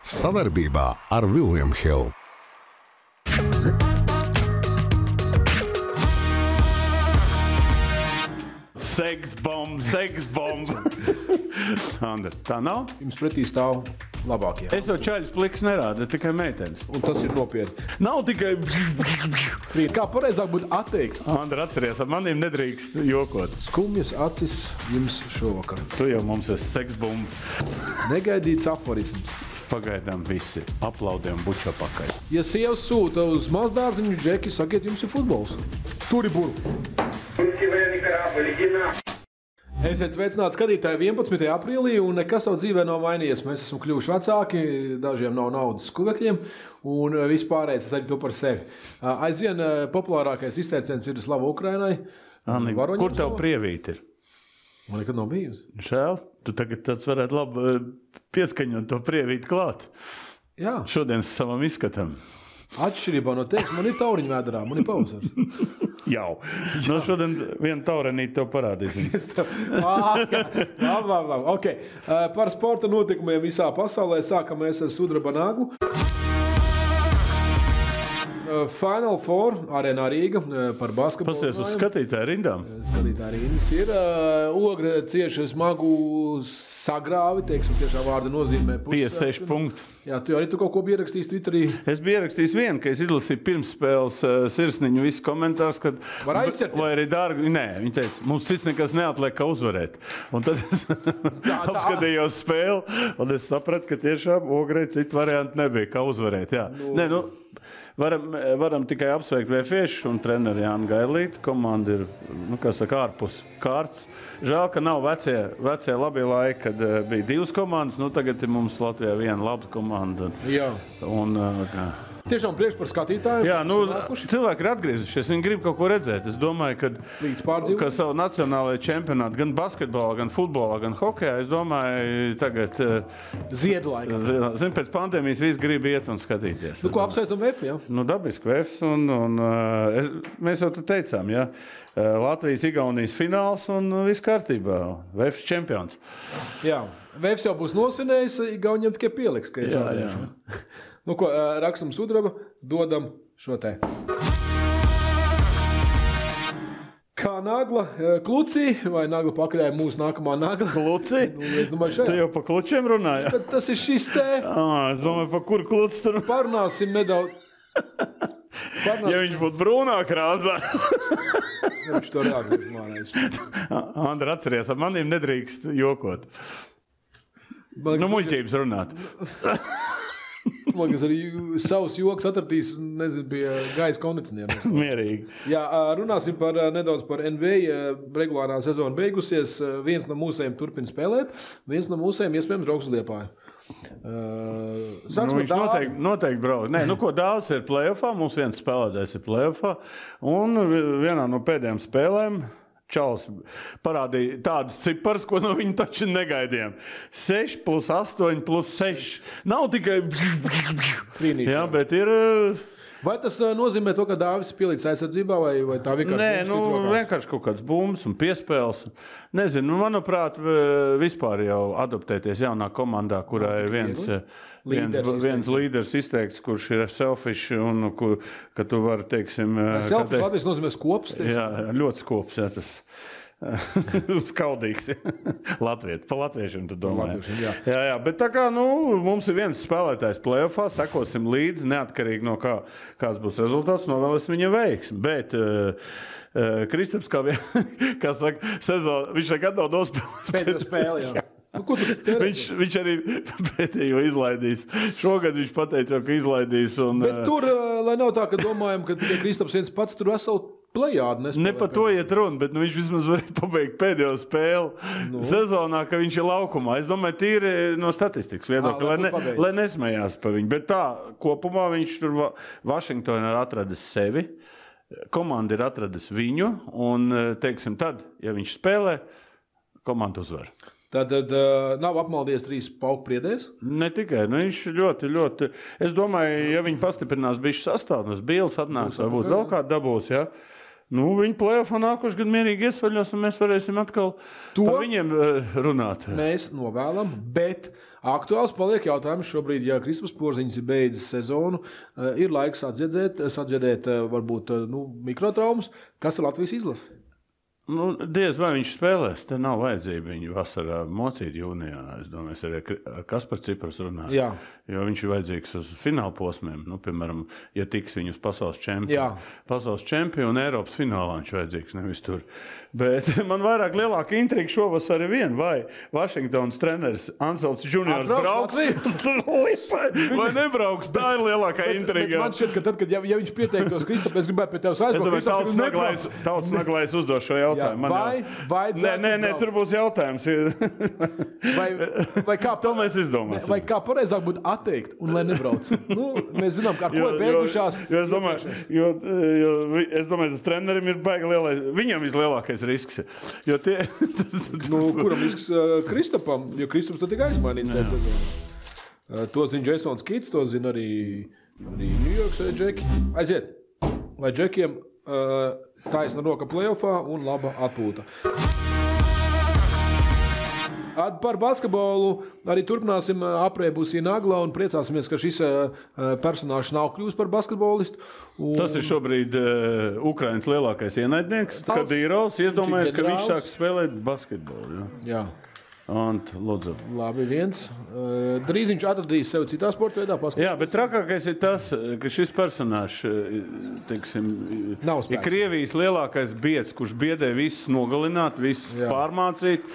Savarbībā ar William Hill. Seksbomba. Andra, tā nav? Jums pretī stāv labākie. Es jau čaļus pliks nerādu, tikai meitenes. Un tas ir nopietni. Nav tikai... Kā pareizāk būtu atteikt? Andra, atceries, ar maniem nedrīkst jokot. Skumjas acis jums šovakar. Tu jau mums esi seksbomba. Negaidīts aforisms. Pagaidām visi aplaudiem bučā pakaļ. Ja sievas sūta uz mazdārziņu, džeki, sakiet, jums ir futbols. Turi buru. Esiet sveicināti skatītāji 11. aprīlī, un nekas savu dzīvē nav mainījies. Mēs esam kļuvuši vecāki, dažiem nav naudas skuvekļiem, un vispārējais es arī to par sevi. Aizvien populārākais izteiciens ir Slava Ukrainai. Anni, kur tev prievīti ir? Man nekad nav bijusi. Žēl, tu tagad tāds varētu labi pieskaņot to prievīti klāt. Jā. Šodien savam izskatam. Atšķirībā no tevis, man ir tauriņu vēdarā, man ir pavasars. Jau. No šodien vienu taurenīti tev parādīsim. Labi. Okay. Par sporta notikumiem visā pasaulē sākam mēs ar sudraba naglu. Final Four arēnā Rīga par basketbolu. Pasies uz skatītāju rindām. Skatītāju rindas ir. Ogra cieši smagu sagrāvi, teiksim, tiešā vārda nozīmē. 56 punkti. Jā, tu arī tu kaut ko biji ierakstījis Twitterī. Es biju ierakstījis vienu, ka es izlasīju pirmsspēles sirsniņu visu komentārus, kad... Var aizķerties? Vai arī dārgi? Nē, viņi teica, mums cits nekas neatliek, kā uzvarēt. Un tad es apskatījos spēli, un es sapratu, ka tiešām Ogrei citu variantu nebija, kā uzvarēt. Jā. Nē, varam tikai apsveikt Vēfiešus un treneri Jānu Gailīti. Komanda ir, ārpus kārtas. Žēl, ka nav vecie labie laiki, kad bija divas komandas. Tagad ir mums Latvijā viena laba komanda. Jā. Tiešām priekš par skatītājiem. Jā, cilvēki ir atgriezušies, viņi grib kaut ko redzēt. Es domāju, ka savu nacionālajā čempionātu, gan basketbolā, gan futbolā, gan hokejā, es domāju, tagad... Ziedu laikā. Zin, pēc pandēmijas visi grib iet un skatīties. Ko apsveicam VF, jā? Dabiski VF, mēs jau te teicām, jā. Latvijas-Igaunijas fināls un viss kārtībā. VF čempions. Jā, VF jau būs nosvinējis, Igauniem tikai pieliks, ka ir čempions. Rakstam sudraba, dodam šo te. Kā nagla klucī, vai nagla pakaļai mūsu nākamā nagla? Klucī? Es domāju, šajā. Tu jau pa klučiem runāji? Bet tas ir šis te. Es domāju, pa kur klucis tur? Parunāsim nedaudz. Ja viņš būtu brūnā krāsā. Viņš to reāli mārēs. Andra, atceries, ar maniem nedrīkst jokot. Muļķības runāt. Man liekas, arī savus joks atradīs, nezinu, pie gaisa kondicionieriem. Mierīgi. Jā, runāsim nedaudz par NBA. Regulārā sezona beigusies. Viens no mūsējiem turpina spēlēt, viens no mūsējiem iespējams brauks uz Liepāju. Viņš noteikti brauc. Ko daudz ir playoffā, mums viens spēlētājs ir playoffā, un vienā no pēdējām spēlēm Čals parādīja tādas cipars, ko no viņa taču negaidījām. 6 plus 8 plus 6. Nav tikai... Jā, bet ir... Vai tas nozīmē to, ka Dāvis pielīdz aizsardzībā, vai tā vienkārši... Vienkārši kaut kāds bumbs un piespēles. Nezinu, manuprāt, vispār jau adaptēties jaunā komandā, kurā ir viens līderis izteikts, kurš ir selfish un ka tu vari, teiksim... Selfish Latvijas nozīmē skops, teiksim. Jā, ļoti skops, jā, tas... Skaudīgs. Pa latviešiem tu domā. Jā, bet tā kā, mums ir viens spēlētājs playoffā, sekosim līdzi, neatkarīgi no kāds būs rezultāts, novēlēsim viņam veiksmi. Bet Kristaps, kā saka, sezonu, viņš nekad nav nospēlējis. Pēdējo spēli, jā. Viņš arī pēdējo izlaidīs. Šogad viņš pateica, ka izlaidīs. Bet tur, lai nav tā, ka domājam, ka tikai Kristaps viens pats tur veselu plejādu nespēlē. Ne par to iet runa, bet viņš vismaz varēja pabeigt pēdējo spēli sezonā, ka viņš ir laukumā. Es domāju, tīri no statistikas viedokļa, lai nesmējās par viņu. Bet tā, kopumā viņš tur Vašingtonā ir atradis sevi, komanda ir atradis viņu, un, teiksim, tad, ja viņš spēlē, komanda uzvar. Tad nav apmaldies 3 pauku priedēs? Ne tikai, viņš ļoti. Es domāju, ja viņi pastiprinās bišķi sastāvnes, Bīls atnāks, varbūt vēl kādu dabūs, ja? Nu, viņi play-offā nākošu gadu mierīgi iesvaļos, un mēs varēsim atkal par viņiem runāt. Mēs novēlam, bet aktuāls paliek jautājums šobrīd, ja Kristaps Porziņš ir beidzis sezonu, ir laiks sadziedēt varbūt mikrotraumas. Kas ir Latvijas izlase? Nu, diez vai viņš spēlēs, te nav vajadzība viņu vasarā mocīt jūnijā. Es domāju, es arī ar Kasparu Cipras runāju. Jā. Jo viņš ir vajadzīgs uz fināla posmiem. Nu, piemēram, ja tiks viņu uz pasaules čempionu. Pasaules čempionu un Eiropas finālā viņš vajadzīgs, nevis tur. Bet man vairāk lielāka intriga šovasar ir viena, vai Vašingtonas treneris Anselms Juniors brauks vai nebrauks. Tā ir lielākā intriga. Man šķiet, ka tad, kad ja viņš pieteiktos Kristap, es gribētu pie tevis aizbraukt. Es domāju, Tautas Naglais uzdos šo jautājumu. Nē, tur būs jautājums. Vai kā, to mēs izdomāsim. Vai kā pareizāk būtu atteikt un lai nebrauc? Mēs zinām, ar ko ir beigušās. Es domāju, tas trenerim ir baigi lielais. Viņam vislielākais risks. Kuram risks Kristapam? Jo Kristaps tad tikai aizmainīts tajā sezonā. To zina Jasons Kits, to zina arī New Yorks džeki. Aiziet, lai džekiem taisna roka play-offā un laba atpūta. Par basketbolu arī turpināsim aprēbusī Nagla un priecāsimies, ka šis personāžs nav kļūst par basketbolistu. Tas ir šobrīd Ukrainas lielākais ienaidnieks, Kadīrovs. Iedomājies, ka viņš sāk spēlēt basketbolu. Jā. Ant, lūdzu. Labi, viens. Drīz viņš atradīs sevi citā sporta veidā. Jā, bet trakākais ir tas, ka šis personāžs, teiksim, ir Krievijas lielākais biedrs, kurš biedē visus nogalināt, visus pārmācīt.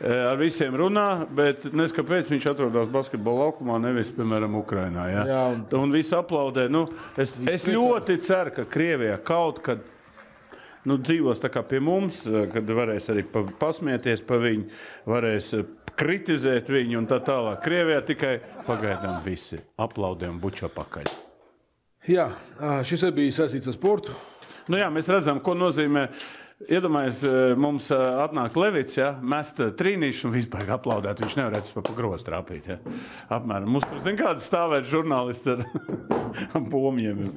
Ar visiem runā, bet neskapēc viņš atrodas basketbola laukumā, nevis, piemēram, Ukrainā. Ja? Jā, un visi aplaudē. Es ļoti ceru, ka Krievijā kaut kad dzīvos tā kā pie mums, kad varēs arī pasmieties pa viņu, varēs kritizēt viņu un tā tālāk. Krievijā tikai pagaidām visi aplaudē un bučā pakaļ. Jā, šis ir bijis saistīts ar sportu. Jā, mēs redzam, ko nozīmē. Iedomājies, mums atnāk Levits, mest trīnīšu un vispār aplaudēt. Viņš nevarētu pa grozu trāpīt. Ja? Apmēram. Mums tur, zin, kādi stāvēt žurnālisti ar pomjiem.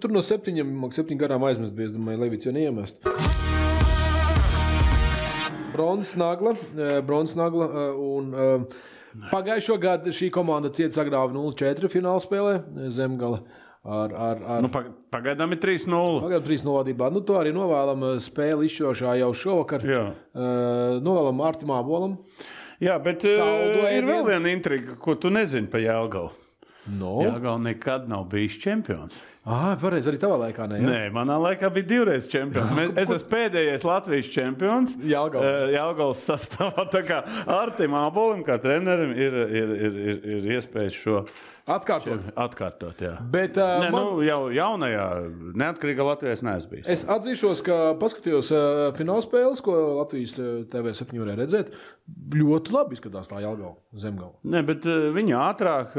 Tur no 7 gadām aizmest bija, es domāju, Levits jau neiemest. Bronzas Nagla un pagājušo gadu šī komanda ciet sagrāva 0-4 fināla spēlē Zemgale. Pagaidām ir 3-0. Pagaidām 3-0 vadībā. To arī novēlam spēli izšķirošā jau šovakar. Novēlam Artim Ābolam. Jā, bet ir vēl viena intriga, ko tu nezini pa Jelgavu. Jelgava nekad nav bijis čempions. Pareizi, arī tavā laikā ne? Nē, manā laikā bija 2 reizes čempions. Es esmu pēdējais Latvijas čempions Jelgavas sastāvā. Tā kā Artim Ābolim, kā trenerim, ir iespējas šo atkārtot, jā. Bet, jau jaunajā neatkarīgā Latvijas neesmu bijis. Es atzīšos, ka paskatījos finālspēles, ko Latvijas TV7 varēja redzēt. Ļoti labi izskatās tā Jelgava, Zemgala. Nē, bet viņi ātrāk,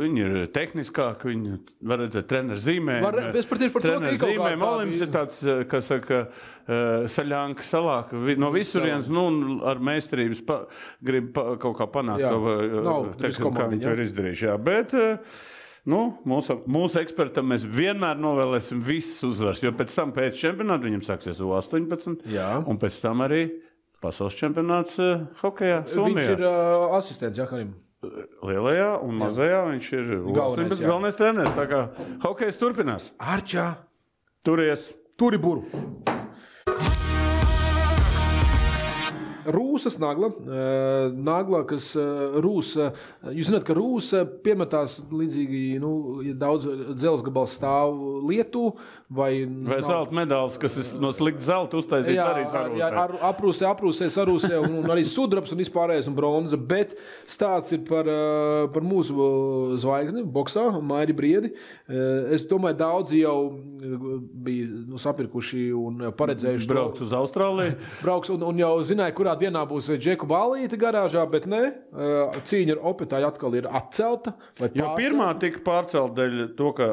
viņi ir tehniskāk, viņi var redzēt treneru zīmēm. Es par tieši par to, ka ir kaut kādā Olims ir tāds, kā saka, saļānka salāk no visurienes, ar meistarības grib kaut kā panākt to, kā viņi to ir izdarījuši. Jā, bet mūsu ekspertam mēs vienmēr novēlēsim visas uzvaras, jo pēc tam pēc čempionāta viņam sāksies U18, un pēc tam arī pasaules čempionāts hokejā Somijā. Viņš ir asistents, Karim. Lielajā un mazajā viņš ir galvenais treneris. Tā kā hokejs turpinās. Arčā! Turies! Turi buru! Rūsas Nagla, kas Rūsa, jūs zināt, ka Rūsa piemetās līdzīgi, ja daudz dzelzgabals stāv Lietu, vai zelta medāls, kas ir no slikta zelta uztaisīts arī sarūsē. Aprūsē, sarūsē un arī sudrabs un vispārējais un bronza, bet stāsts ir par mūsu zvaigzni, boksā, Mairi Briedi. Es domāju, daudzi jau bija sapirkuši un paredzējuši braukt uz Austrāliju. Brauks un jau zināja, kurā dienā būs Džeku Ballīte garāžā, bet ne. Cīņa ar Opetāju atkal ir atcelta. Jo pirmā tika pārcelta dēļ to, ka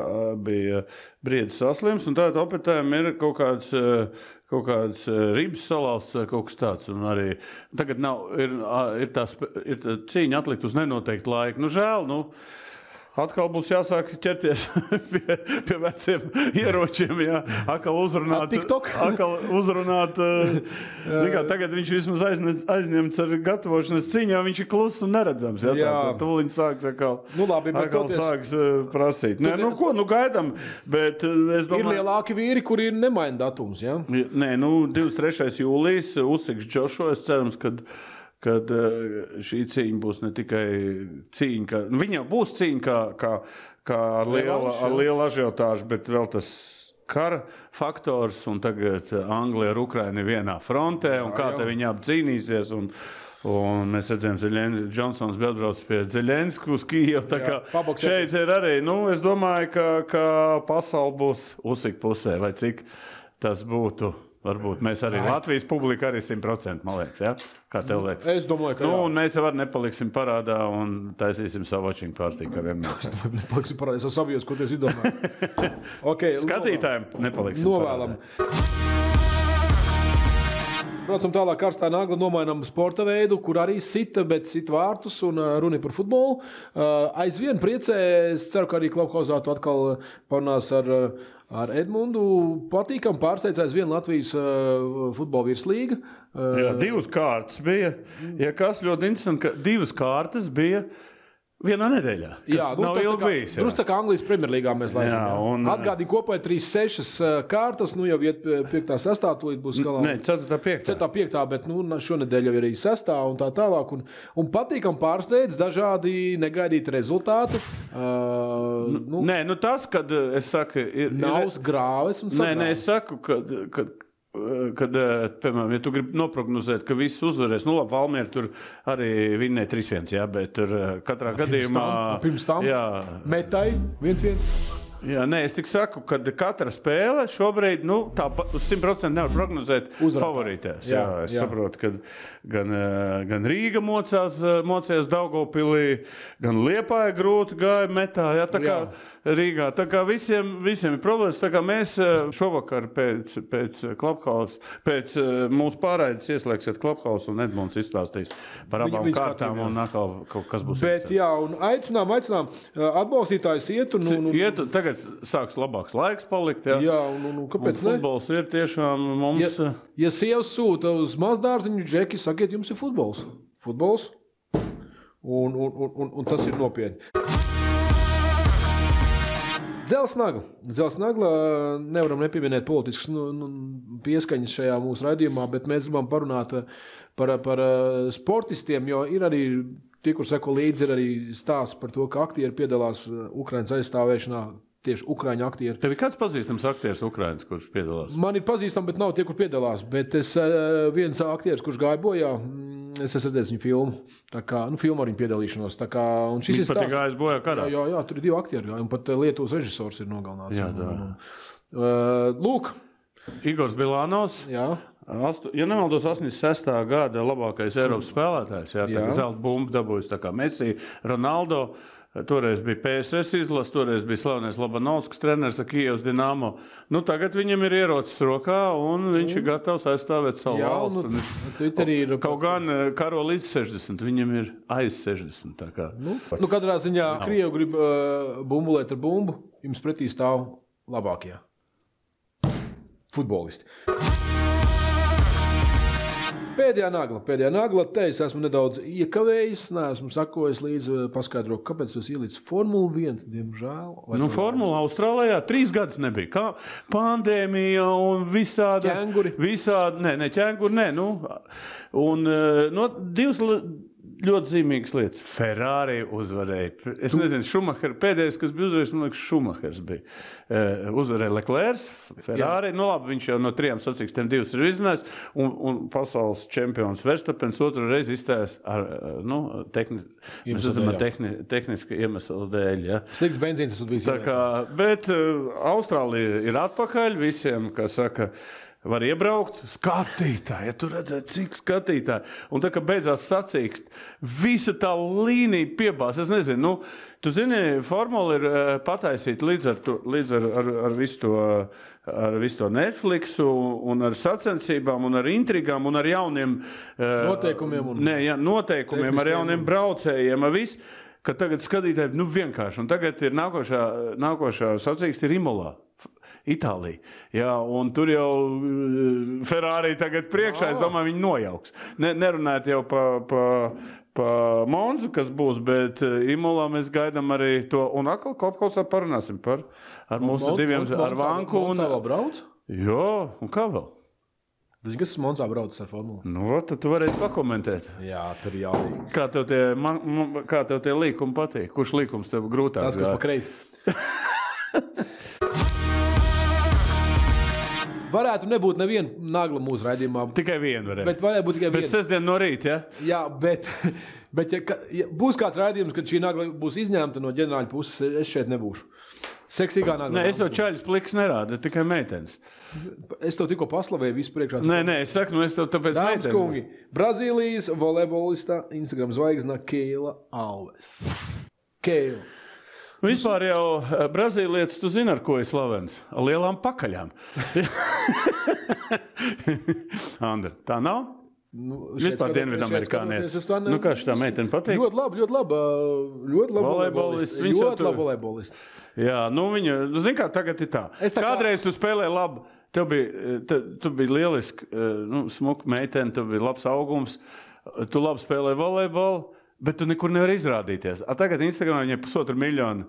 bija Briedis saslims, un tātad Opetājam ir kaut kāds ribs salauzts vai kaut kas tāds. Un arī tagad ir cīņa atlikt uz nenoteiktu laiku. Žēl, Atkal būs jāsāk ķerties pie veciem ieročiem, jā. Atkal uzrunāt. Tagad viņš vismaz aizņemts ar gatavošanas cīņā, viņš ir kluss un neredzams. Jā. Tūliņ sāks atkal sāks prasīt. Nē, gaidam, bet es domāju... Ir lielāki vīri, kuri nemaina datums, jā? Nē, 23. jūlijas uzsiks Džošo, es cerams, kad šī cīņa būs ne tikai cīņa, viņa jau būs cīņa kā ar lielu ažiotāžu, bet vēl tas kara faktors, un tagad Anglija ar Ukrainu vienā frontē, un kā te viņi apcīnīsies, un mēs redzējām, Džonsons bija atbrauc pie Zeļensku uz Kijevu, tā kā šeit ir arī, es domāju, ka pasauli būs uzsik pusē, vai cik tas būtu. Varbūt mēs arī Latvijas publika arī 100%, man liekas, ja? Kā tev liekas? Es domāju, ka jā. Un mēs jau nepaliksim parādā un taisīsim savu watching party, kā vienmēr. Nepaliksim parādā, es jau sabijos, ko tu esi izdomājis. Okay, skatītājiem nepaliksim novēlam. Braucam tālāk, karstā nagla nomainām sporta veidu, kur arī sita, bet sita vārtus un runa par futbolu. Aizvien priecē, es ceru, ka arī Klubhausā tu atkal parunās ar Edmundu. Patīkam pārsteidz aizvien Latvijas futbola virslīga. Jā, 2 kārtas bija. Ja kas ļoti interesanti, ka 2 kārtas bija vienā nedēļā. Jā, nav ilgi bijis. Drusku tā kā Anglijas Premjerlīgā mēs laižam. Atgādīgi kopā 3-6 kārtas, jau iet 5-6, tūlīt būs galā. Nē, 4-5. 4-5, bet šonedēļ jau ir arī 6 un tā tālāk. Un patīkam pārsteidz dažādi negaidīti rezultāti. Nē, tas, kad es saku... Nav grāves un sagrāves. Nē, es saku, kad, piemēram, ja tu gribi noprognozēt, ka viss uzvarēs, labi, Valmiera tur arī vinnēja 3-1, jā, bet tur katrā gadījumā... Pirms tam metai 1-1. Jā, nē, es tik saku, ka katra spēle šobrīd, tā uz 100% nevar prognozēt favorītēs. Jā, es saprotu, ka gan Rīga mocījās Daugavpilī, gan Liepāja grūti gāja metā, jā, tā kā Rīgā. Tā kā visiem ir problēmas, tā kā mēs šovakar pēc Klubhausa, pēc mūsu pārraides ieslēgsiet Klubhausa un Edmunds izstāstīs par abām kārtām un atkal kaut kas būs. Bet jā, un aicinām, atbalstītājus iet un... Tagad sāks labāks laiks palikt, jā. Jā, un kāpēc ne? Futbols ir tiešām mums... Ja sievas sūta uz mazdārziņu džeki, sakiet, jums ir futbols. Futbols. Un tas ir nopietni. Dzelzsnagla nevaram nepieminēt politiskas pieskaņas šajā mūsu raidījumā, bet mēs gribam parunāt par sportistiem, jo ir arī tie, kur seko līdzi, ir arī stāsts par to, ka aktieri piedalās Ukrainas aizstāvēšanā. Tieši Ukraiņu aktieri. Tev ir kāds pazīstams aktieris Ukrainas, kurš piedalās? Man ir pazīstams, bet nav tie, kur piedalās. Bet es viens aktieris, kurš gāja bojā, es esmu redzējis viņu filmu. Tā kā, filmu ar viņu piedalīšanos. Tā kā, un šis viņš pat ir gājis bojā karā? Jā, tur ir 2 aktieri. Un pat Lietuvas režisors ir nogalināts. Jā, Lūk. Igors Bilanovs. Jā. Ja nemaldos, 86. gada labākais Eiropas spēlētājs. Jā, tā zelta bumba dabūjas tā kā Messi, Ronaldo. Toreiz bija PSS izlase, toreiz bija slavenais Lobanovskis treneris ar Kijevas Dinamo. Tagad viņam ir ierocis rokā un viņš ir gatavs aizstāvēt savu valstu. Kaut gan karo līdz 60, viņam ir aiz 60. Tā kā. Katrā ziņā Krievi grib bumbulēt ar bumbu, jums pretī stāv labākie futbolisti. Pēdējā nagla, te es esmu nedaudz iekavējis, neesmu sakojis līdzi paskaidrot, kāpēc es ielicu Formula 1, diemžēl. Formula Austrālijā 3 gadus nebija. Kā pandēmija un visādi... Ķēnguri. Ķēnguri, nē. Un 2 ļoti zīmīgas lietas. Ferrari uzvarēja. Es nezinu, pēdējais, kas bija uzvarējis, man liekas, Šumahers bija. Uzvarēja Leclerc, Ferrari. Labi, viņš jau no 3 sacīkstiem 2 ir izzinājis. Un pasaules čempions Verstappens otru reizi izstājās ar tehniska iemesla dēļ. Ja. Slikts benzīns, tas bija. Bet Austrālija ir atpakaļ visiem, kas saka, var iebraukt, skatītāji, ja tu redzēt, cik skatītāji. Un tā, ka beidzās sacīkst, visa tā līnija piebās. Es nezinu, tu zini, formula ir pataisīta līdz ar visu to Netflixu un ar sacensībām un ar intrigām un ar jauniem... Noteikumiem. Noteikumiem, ar jauniem braucējiem, ar visu. ka tagad skatītāji, vienkārši, un tagad ir nākošā sacīksts ir Imolā. Itālija. Jā, un tur jau Ferrari tagad priekšā, es domāju, viņi nojauks. Nerunājot jau pa Monzu, kas būs, bet Imolā mēs gaidām arī to, un atkal Klapkausā parunāsim ar mūsu diviem, ar Vanku. Monzā vēl brauc? Jā, un kā vēl? Kas Monzā brauc ar formulu? Nu, tad tu varēsi pakomentēt. Jā, tur jālīgi. Kā tev tie līkumi patīk? Kurš līkums tev grūtāk? Tas, kas pa kreisi. Varētu nebūt neviena nagla mūsu raidījumā. Tikai viena varētu. Bet varētu būt tikai viena. Bet sestdien no rīta, ja? Jā, bet ja būs kāds raidījums, kad šī nagla būs izņemta no ģenerāļa puses, es šeit nebūšu. Seksīgā nagla. Nē, es jau čaļus pliks nerādu, tikai meitenes. Es tev tikko paslavēju visu priekšā. Nē, es saku, es tev tāpēc meitenes. Dāmas kungi, Brazīlijas volejbolista Instagram zvaigzna Keila Alves. Keila. Vispār jau brazīlietis, tu zini, ar ko ir slavens? Ar lielām pakaļām. Andra, tā nav? Vispār Dienvidamerikānietis. Nu, kā šitā meitene patīk? Ļoti labi volejbolista. Ļoti labi volejbolista. Jā, nu viņa, zini kā, tagad ir tā. Kādreiz tu spēlēji labi, tu biji lieliski, smuka meitene, tu biji labs augums, tu labi spēlēji volejbolu, bet tu nekur nevar izrādīties. Tagad Instagramā viņai 1,5 miljonu.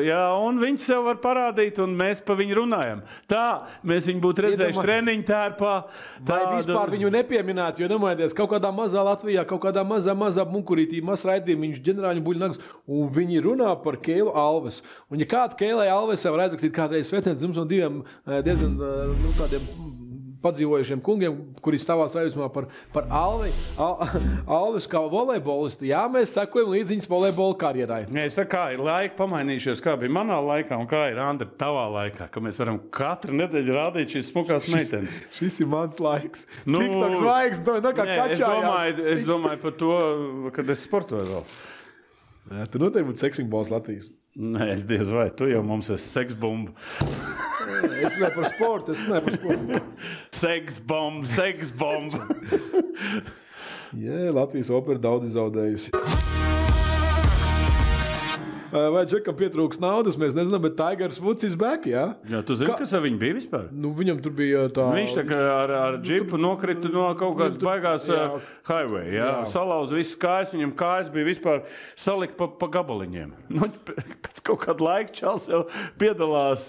Jā, un viņi sev var parādīt, un mēs pa viņu runājam. Tā, mēs viņu būtu redzējuši treniņu tērpā. Vai vispār viņu nepieminētu, jo domājieties, kaut kādā mazā Latvijā, kaut kādā mazā munkurītī, raidījumā, viņš ģenerāļu buļnagas, un viņi runā par Keilu Alves. Un ja kāds Keilai Alvesai var aizrakstīt kādreiz svetniec, jums no diviem diezgan tādiem padzīvojušiem kungiem, kuri stāvās aizmā par Alves kā volejbolistu. Jā, mēs sekojam līdz viņas volejbola karjerai. Es saku, kā ir laika pamainījušies, kā bija manā laikā un kā ir Andra tavā laikā, ka mēs varam katru nedēļu rādīt šīs smukās meitenes. Šis ir mans laiks. TikTok zvaigznes, kā kačājās. Es domāju par to, kad es sportoju vēl. Jā, tu noteikti būtu seksingbols Latvijas. Nē, es diez vai, tu jau mums esi seksbumba. Es ne par sportu. Seksbomba. Jā, Latvijas opera daudz zaudējusi. Vai Džekam pietrūks naudas, mēs nezinām, bet Tigers Woods is back, jā? Jā, tu zini, kas ar viņu bija vispār? Nu, viņam tur bija tā... Viņš tā kā ar džipu nokrita no kaut kādas baigās highway, jā? Salauz visas kājas, viņam kājas bija vispār salikt pa gabaliņiem. Nu, pēc kaut kāda laika čals jau piedalās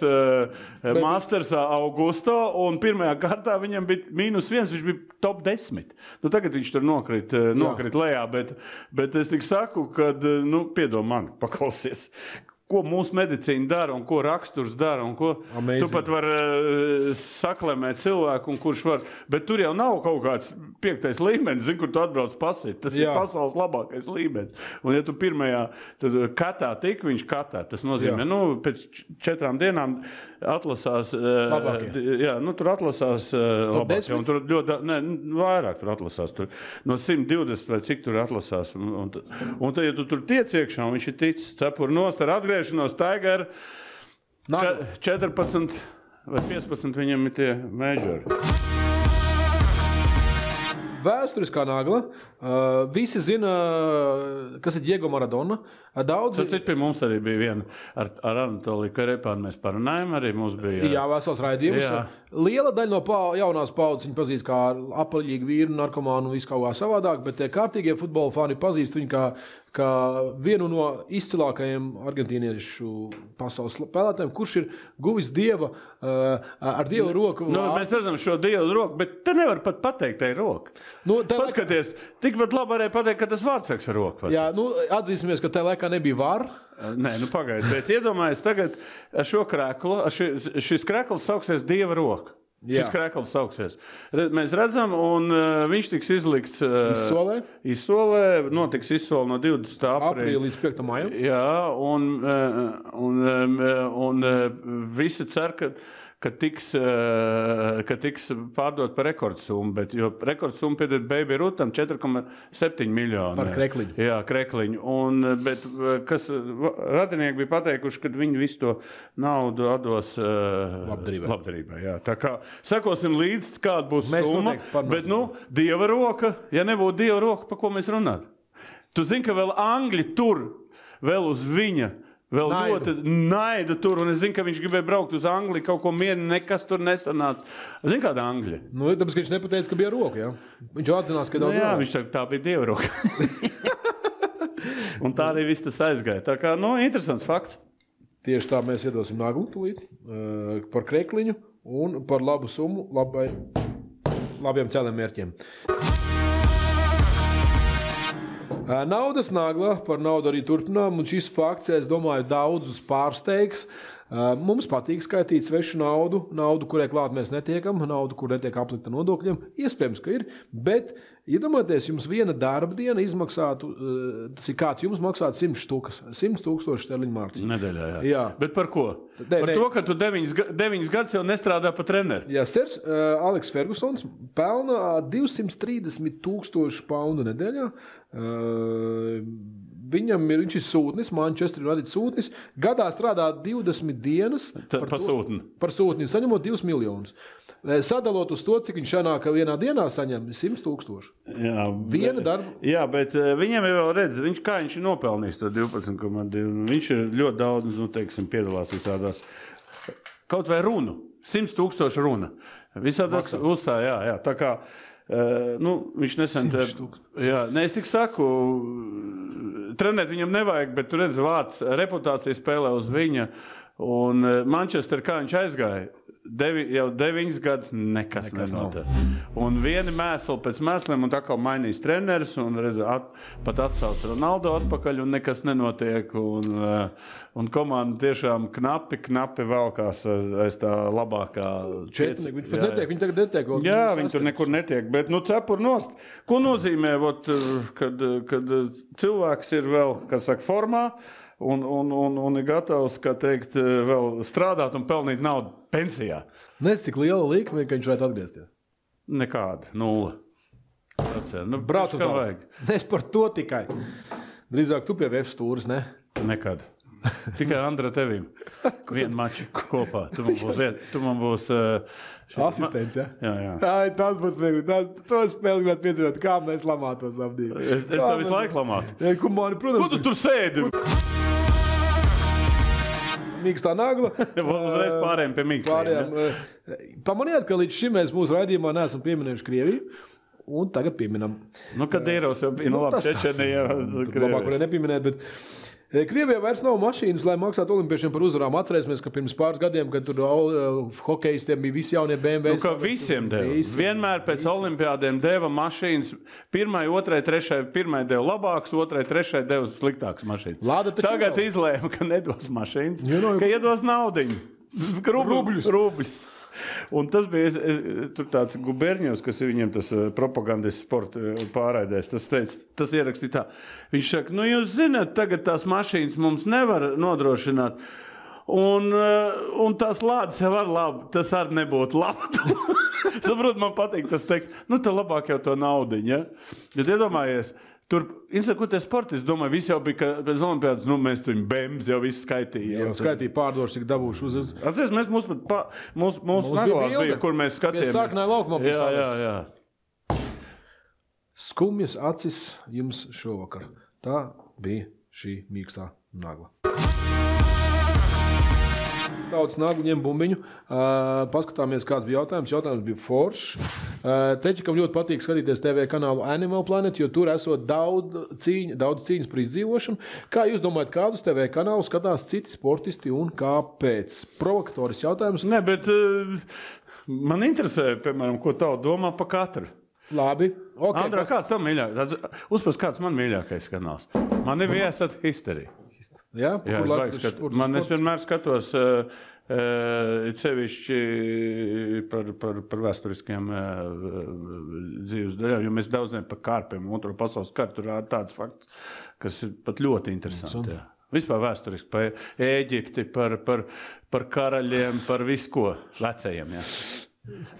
Mastersā Augusto, un pirmajā kārtā viņam bija -1, viņš bija top 10. Nu, tagad viņš tur nokrit lejā, bet es tik saku, kad, piedod man, paklausies. Ko mūsu medicīna dara un ko raksturs dara un ko Amazing. Tu pat var saklemēt cilvēku un kurš var, bet tur jau nav kaut kāds 5. līmenis, zin, kur tu atbrauc pasīt. Tas ir pasaules labākais līmenis. Un ja tu pirmajā, tad katā tik, viņš katā. Tas nozīmē, pēc 4 dienām atlasās, tur atlasās labāk, un tur ļoti, vairāk tur atlasās, tur no 120 vai cik tur atlasās, un tad, ja tu tur tiec iekšā, un viņš ir ticis cepur nost ar atgriešanos Tiger, 14 vai 15 viņam ir tie majori. Vēsturiskā nagla. Visi zina, kas ir Diego Maradona. Cits pie mums arī bija viena ar Anatoliju Karepānu. Mēs parunājam, arī mums bija... Jā, vesels raidījums. Jā. Liela daļa no jaunās paudzes viņa pazīst kā apaļīgu vīru, narkomānu un visu kaut kā savādāk, bet tie kārtīgie futbola fani pazīst viņu kā vienu no izcilākajiem argentīniešu pasaules spēlētājiem, kurš ir guvis dieva ar dieva roku. Mēs redzam šo dievu roku, bet te nevar pat pateikt, tai roka. Paskaties, tikpat labi varēja pateikt, ka tas vārdsargs ar roku. Jā, atzīsimies, ka tajā laikā nebija var. Nē, pagaid, bet iedomājies tagad ar šo kreklu, šis krekls sauksies dieva roka. Šis krekls sauksies. Mēs redzam, un viņš tiks izlikts izsolē, notiks izsole no 20. aprīļa līdz 5. maijam. Jā, un visi cer, ka tiks pārdot par rekordsummu, bet jo rekordsummu piedod Baby Rutam 4,7 miljoni. Par krekliņu. Jā, krekliņu. Bet kas radinieki bija pateikuši, ka viņi visu to naudu atdos labdarībai. Jā. Tā kā sekosim līdz, kāda būs summa, bet dieva roka, ja nebūtu dieva roka, pa ko mēs runāt? Tu zini, ka vēl Angļi tur vēl uz viņa. Vēl ļoti naidu tur, un es zinu, ka viņš gribēja braukt uz Angliju, kaut ko mieru, nekas tur nesanāca. Zini, kāda Angļa? Nu, tāpēc, ka viņš nepateica, ka bija roka, jā? Viņš atzinās, ka daudz jā, viņš saka, tā bija Dieva roka. Un tā arī viss tas aizgāja. Tā kā, interesants fakts. Tieši tā mēs iedosim naglu tūlīt par krekliņu un par labu summu labiem cēliem mērķiem. Naudas nagla, par naudu arī turpinām, un šis fakts, es domāju, daudzus pārsteigs. Mums patīk skaitīt svešu naudu, kurai klāt mēs netiekam, naudu, kur netiek aplikta nodokļiem. Iespējams, ka ir, bet iedomājieties, jums viena darba diena izmaksātu, kāds jums maksātu 100 000 sterliņu mārciņu. Nedēļā, jā. Bet par ko? Par to, ka tu 9 gadus jau nestrādā pa treneri. Jā, sers Aleks Fergusons pelna 230 000 poundu nedēļā. Viņš ir sūtnis, Manchester United sūtnis. Gadā strādā 20 dienas par sūtni. Par sūtni, saņemot 2 miljonus. Sadalot uz to, cik viņš sanāk vienā dienā saņem 100 000. Jā, viena darba. Jā, bet viņam jau redz, kā viņš ir nopelnījis to 12,2. Viņš ir ļoti daudz, piedalās visādās. Kaut vai runu, 100 000 runa. Visādās uzsā, jā. Tā kā, viņš nesen... Jā, es tik saku, trenēt viņam nevajag, bet tu redz vārds, reputācija spēlē uz viņa. Un Manchester, kā viņš aizgāja, jau 9 gadus nekas nenotiek. Un vieni mēsli pēc mēsliem, un tā kā mainīs treneris, un redz, pat atsauc Ronaldo atpakaļ, un nekas nenotiek. Un komanda tiešām knapi valkās aiz tā labākā... Viņi pat netiek, viņi tagad netiek. Jā, viņi tur nekur netiek, bet cepur nost. Ko nozīmē, kad cilvēks ir vēl, kas saka, formā, un ir gatavs, kā teikt, vēl strādāt un pelnīt naudu pensijā. Cik liela likme, ka viņš varētu atgriezties? Nekāda, 0. Braucam tālāk. Es par to tikai. Drīzāk tu pie VF stūris, ne? Nekad. Tikai Andra tevīm. Vienu maču kopā. Tu man būs... Asistents, ja? Jā. Ai, tas būs smieklīgi. To spēli gribētu piedzīvot, kā mēs lamātos apdīvi. Es tev visu laiku lamātu. Ja, protams, ko tu tur sēdi? Mīkstā nagla. Uzreiz pārējiem pie mīkstiem. Pamaniet, ka līdz šim mēs mūsu raidījumā neesam pieminējuši Krieviju. Un tagad pieminam. Kadīrovs jau bija, labi, Čečenija. Labāk varēja nepieminēt, bet... Krievijā vairs nav mašīnas, lai maksātu olimpiešiem par uzvarām. Atcerēsimies, ka pirms pāris gadiem, kad tur hokejistiem bija visi jaunie BMW. Ka visiem deva. Vienmēr pēc olimpiādiem deva mašīnas. Pirmai, otrai, trešai, pirmai deva labāks, otrai, trešai deva sliktāks mašīnas. Tagad izlēma, ka nedos mašīnas, ka iedos naudiņu. Rubļus. Un tas bija tur tāds Guberņevs, kas ir viņiem tas propagandas sporta pārraidēs. Tas ierakstīja tā. Viņš saka, jūs zināt, tagad tās mašīnas mums nevar nodrošināt. Un tās lādes jau var labi, tas arī nebūtu labi. Saprot, man patīk tas teksts. Tā labāk jau to naudiņu, ja? Bet iedomājies, tur, ko tie sportisti, domāju, visi jau bija, pēc olimpiādas, mēs tur BEMS jau visu skaitīja. Jau skaitīja pārdošu, cik dabūšu uz... Atceries, mūsu naglās bija, kur mēs skatījām. Pie sāknāja laukumā bija salikts. Jā. Skumjas acis jums šovakar. Tā bija šī mīkstā nagla. Tautas nagla ņem bumbiņu. Paskatāmies, kāds bija jautājums. Jautājums bija foršs. Teķikam ļoti patīk skatīties TV kanālu Animal Planet, jo tur esot daudz cīņas par izdzīvošanu. Kā jūs domājat, kādus TV kanālus skatās citi sportisti un kāpēc? Provokatoris jautājums. Nē, bet man interesē, piemēram, ko tavu domā pa katru. Labi. Okay, Andrā, kāds tam mīļākais? Uzpas, kāds man mīļākais kanāls? Man ir viesat History. Jā, man es vienmēr skatos sevišķi par vēsturiskiem dzīves daļām, jo mēs daudz par kārpiem, otro pasaules karu, tur ir tāds fakts, kas ir pat ļoti interesanti. Jā. Vispār vēsturiski par Ēģipti, par karaļiem, par visu ko vecajiem, jā.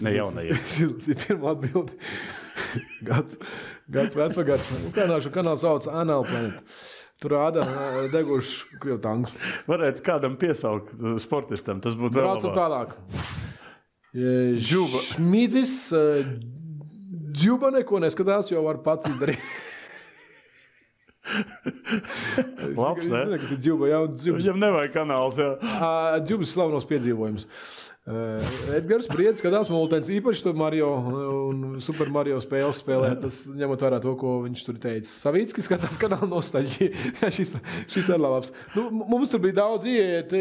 Ne jaunajiem. Šis ir pirmā atbildi. Gads vecvagars. Ukraināšu kanāls sauc Animal Planet. Tur rāda deguši krievu tankus. Varētu kādam piesaukt sportistam, tas būtu vēl labāk. Braucam tālāk. Šmīdzis Džuba neko neskatās, jo var pats izdarīt. Labs, ne? Es zinu, kas ir Džuba, jā, Džubas. Viņam nevajag kanāls, jā. Džubas slavenos piedzīvojums. Edgars Briedis skatās multens, īpaši to Mario un Super Mario spēles spēlē, tas ņemot vērā to, ko viņš tur teica. Savickis skatās kanāla nostalģija. šis ir labs. Nu, mums tur bija daudz ieiet,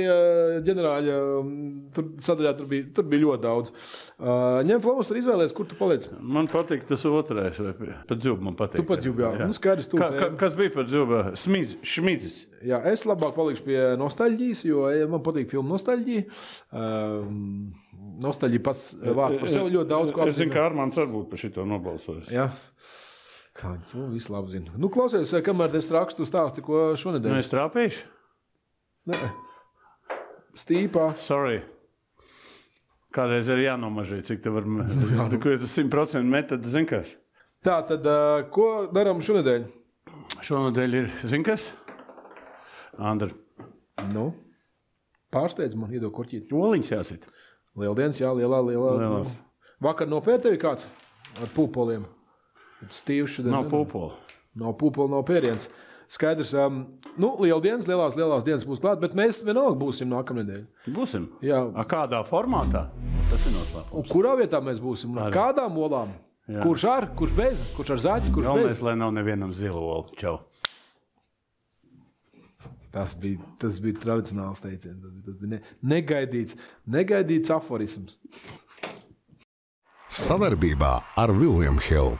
ģenerāļa, tur sadaļā tur bija ļoti daudz. Ņem Flamus tur izvēlēs, kur tu paliec? Man patīk tas otrais, vai pat Džuba man patīk. Tu pat Džuba, jā. Nu, skaidrs, Kas bija par Džuba? Šmidzis. Jā, es labāk palikšu pie nostalģijas, jo man patīk filmu nostalģija. Nostalģija pats vārds par sevi ļoti daudz ko apzīmē. Es zinu, ka Armāns arī būtu par šito nobalsojis. Jā. Kā viņi to visu labi zina. Nu, klausies, kamēr es rakstu stāsti, ko šonedēļ. Nu, es trāpīšu? Nē. Stīpā. Sorry. Kādreiz ir jānomažīt, cik te var... Ko tu 100% met, tad zin kas? Tā, tad ko darām šonedēļ? Šonedēļ ir, zin kas? Andra. Nu, pārsteidz man, iedod korķīt. Oliņas jāsit. Lieldienas, jā, lielās. Vakar nopēr tevi kāds ar pūpoliem? Stīvs šodien. Nav pūpoli. Nav pūpoli, nav pēriens. Skaidrs, nu, lieldienas, lielās dienas būs klāt, bet mēs vienalga būsim nākamnedēļ. Būsim? Jā. Kādā formātā? Tas ir noslēpums. Un kurā vietā mēs būsim? Kādām olām? Jā. Kurš ar, kurš bez? Kurš ar zaķi, kurš bez? Galvenais, lai nav nevienam zilu olu. Čau. Tas bija tradicionāls teiciens. Tas bija negaidīts aforisms. Savarbībā ar William Hill.